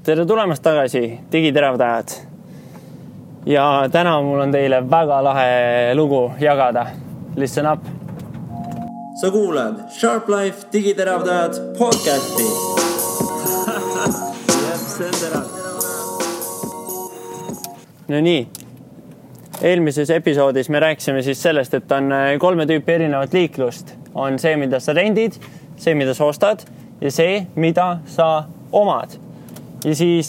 Tere tulemast tagasi, digiteravdajad. Ja täna mul on teile väga lahe lugu jagada. Listen up. Sa kuulad Sharp Life digiteravdajad podcasti. No nii. Eelmises episoodis me rääkisime siis sellest, et on 3 tüüpi erinevat liiklust. On see, mida sa rendid, see, mida sa ostad ja see, mida sa omad. Ja siis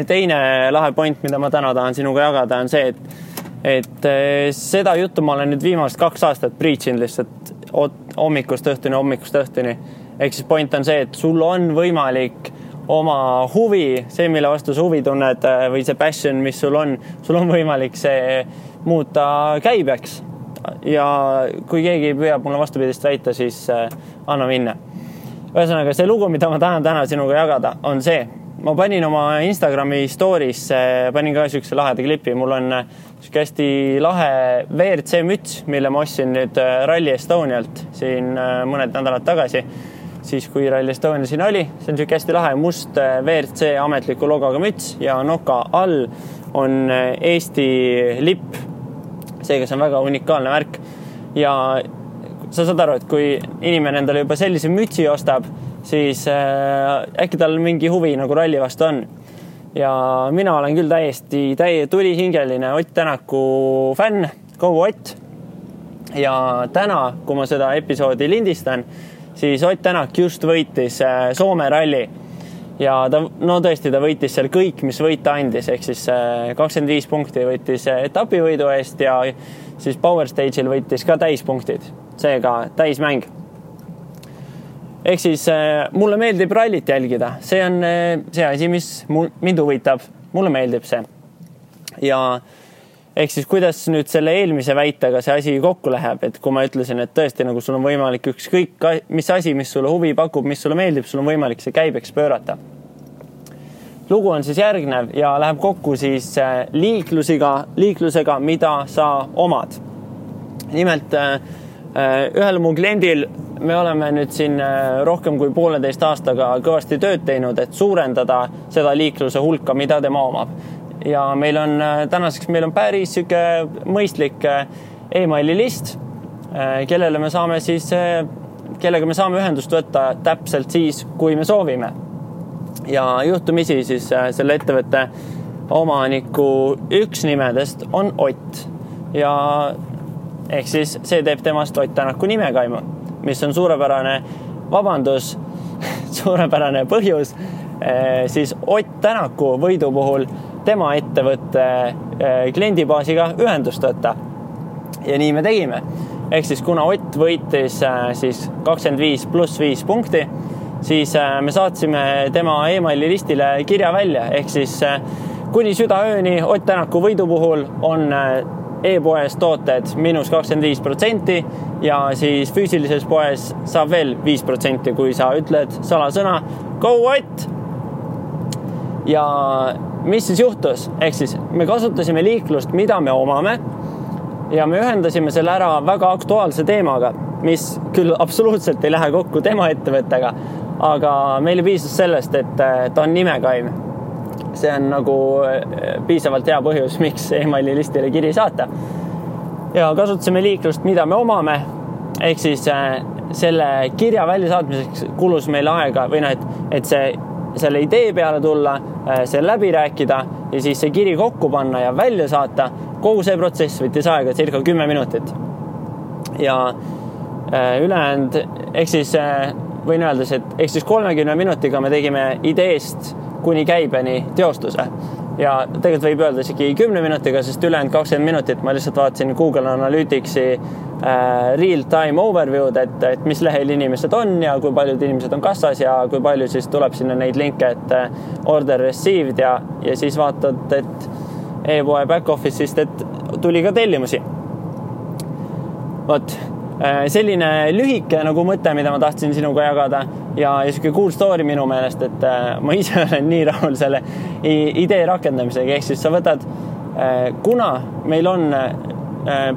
teine lahe point, mida ma täna tahan sinuga jagada, on see, et seda juttu ma olen nüüd viimast 2 aastat preachin lihtsalt hommikust õhtuni. Ehk siis point on see, et sul on võimalik oma huvi, see, mille vastu sa huvi tunned või see passion, mis sul on võimalik see muuta käibeks. Ja kui keegi püüab mulle vastupidist väita, siis anna minna. Ühesõnaga, see lugu, mida ma tahan täna sinuga jagada, on see. Ma panin oma Instagrami stories, panin ka sükse laheda klipi. Mul on hästi lahe WRC müts, mille ma ostsin nüüd Rally Estonialt siin mõned nädalad tagasi. Siis kui Rally Estonia siin oli, see on hästi lahe must WRC ametliku logoga müts ja noka all on Eesti lipp. Seega see on väga unikaalne värk. Ja sa saad aru, et kui inimene endale juba sellise mütsi ostab, siis äkki tal mingi huvi nagu ralli vastu on. Ja mina olen küll täiesti tulihingeline Ott Tänaku fänn, kogu Ott. Ja täna, kui ma seda episoodi lindistan, siis Ott Tänak just võitis Soome ralli. Ja tõesti ta võitis seal kõik, mis võita andis, ehk siis 25 punkti võitis etapivõidu eest ja siis Power Stage'il võitis ka täispunktid, seega täismäng. Ehk siis mulle meeldib rallit jälgida. See on see asi, mis mind huvitab. Mulle meeldib see. Ja ehk siis kuidas nüüd selle eelmise väitega see asi kokku läheb, et kui ma ütlesin, et tõesti nagu sul on võimalik ükskõik mis asi, mis sulle huvi pakub, mis sulle meeldib, sul on võimalik see käibeks pöörata. Lugu on siis järgnev ja läheb kokku siis liiklusega, mida sa omad. Nimelt ühel mu kliendil me oleme nüüd siin rohkem kui 1,5 aastaga kõvasti tööd teinud, et suurendada seda liikluse hulka, mida tema omab. Ja tänaseks meil on päris süke mõistlik e-maili list, kellega me saame ühendust võtta täpselt siis, kui me soovime. Ja juhtumisi siis selle ettevõtte omaniku üks nimedest on Ott. Ja ehk siis see teeb temast Ott Tänaku nimekaimu, mis on suurepärane põhjus siis Ott Tänaku võidu puhul tema ettevõtte kliendibaasiga ühendust võtta. Ja nii me tegime. Ehk siis kuna Ott võitis siis 25 + 5 punkti, siis me saatsime tema e-maili listile kirja välja. Ehk siis kuni südaööni Ott Tänaku võidu puhul on e-poes tooted -25% ja siis füüsilises poes saab veel 5%, kui sa ütled salasõna Go Ott! Ja mis siis juhtus? Ehk siis me kasutasime liiklust, mida me omame ja me ühendasime selle ära väga aktuaalse teemaga, mis küll absoluutselt ei lähe kokku tema ettevõttega, aga meile piisas sellest, et ta on nimekaim. See on nagu piisavalt hea põhjus, miks e-maili listile kiri saata. Ja kasutasime liiklust, mida me omame, ehk siis selle kirja välja saatmiseks kulus meil aega või et selle idee peale tulla, see läbi rääkida ja siis see kiri kokku panna ja välja saata. Kogu see protsess võttis aega circa 10 minutit. Ja ülejäänud, ehk siis võin öeldes, et ehk siis 30 minutiga me tegime ideest kuni käibeni teostuse. Ja tegelikult võib öelda isegi 10 minutiga, sest ülejäänud 20 minutit ma lihtsalt vaatasin Google Analyticsi real-time overview'd, et mis lehel inimesed on ja kui paljud inimesed on kassas ja kui palju siis tuleb sinna neid linke, et order received ja siis vaatad, et e-poe back office'ist, et tuli ka tellimusi. Vot, selline lühike nagu mõte, mida ma tahtsin sinuga jagada ja selline cool story minu meelest, et ma ise olen nii rahul selle idee rakendamisega, ehk siis sa võtad, kuna meil on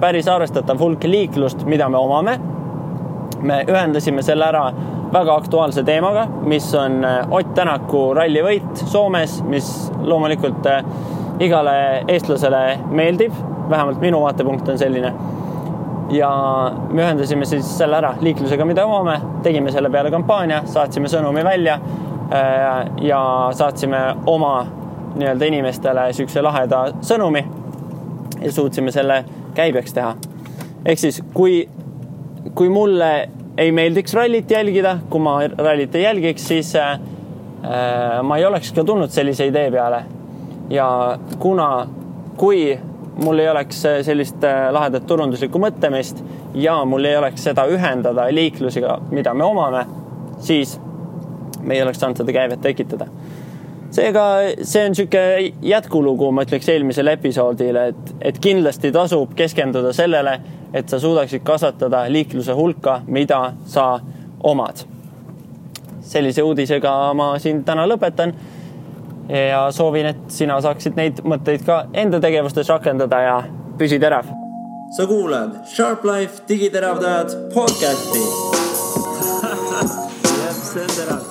päris arvestatav hulk liiklust, mida me omame, me ühendasime selle ära väga aktuaalse teemaga, mis on Ott Tänaku rallivõit Soomes, mis loomulikult igale eestlasele meeldib, vähemalt minu vaatepunkt on selline. Ja me ühendasime siis selle ära liiklusega, mida omame, tegime selle peale kampaania, saatsime sõnumi välja ja saatsime oma nii-öelda inimestele sükse laheda sõnumi ja suutsime selle käibeks teha. Ehk siis, kui mulle ei meeldiks rallit jälgida, kui ma rallit ei jälgiks, siis ma ei oleks ka tulnud sellise idee peale. Ja kui mul ei oleks sellist lahedat turunduslikku mõtlemist ja mul ei oleks seda ühendada liiklusega, mida me omame, siis me ei oleks saanud seda käivet tekitada. Seega see on siuke jätkulugu, ma ütleks eelmisel episoodile, et kindlasti tasub keskenduda sellele, et sa suudaksid kasvatada liikluse hulka, mida sa omad. Sellise uudisega ma siin täna lõpetan ja soovin, et sina saaksid neid mõtteid ka enda tegevustes rakendada ja püsi terav. Sa kuulad Sharp Life digiteravdajad podcasti. Jep, see on terav.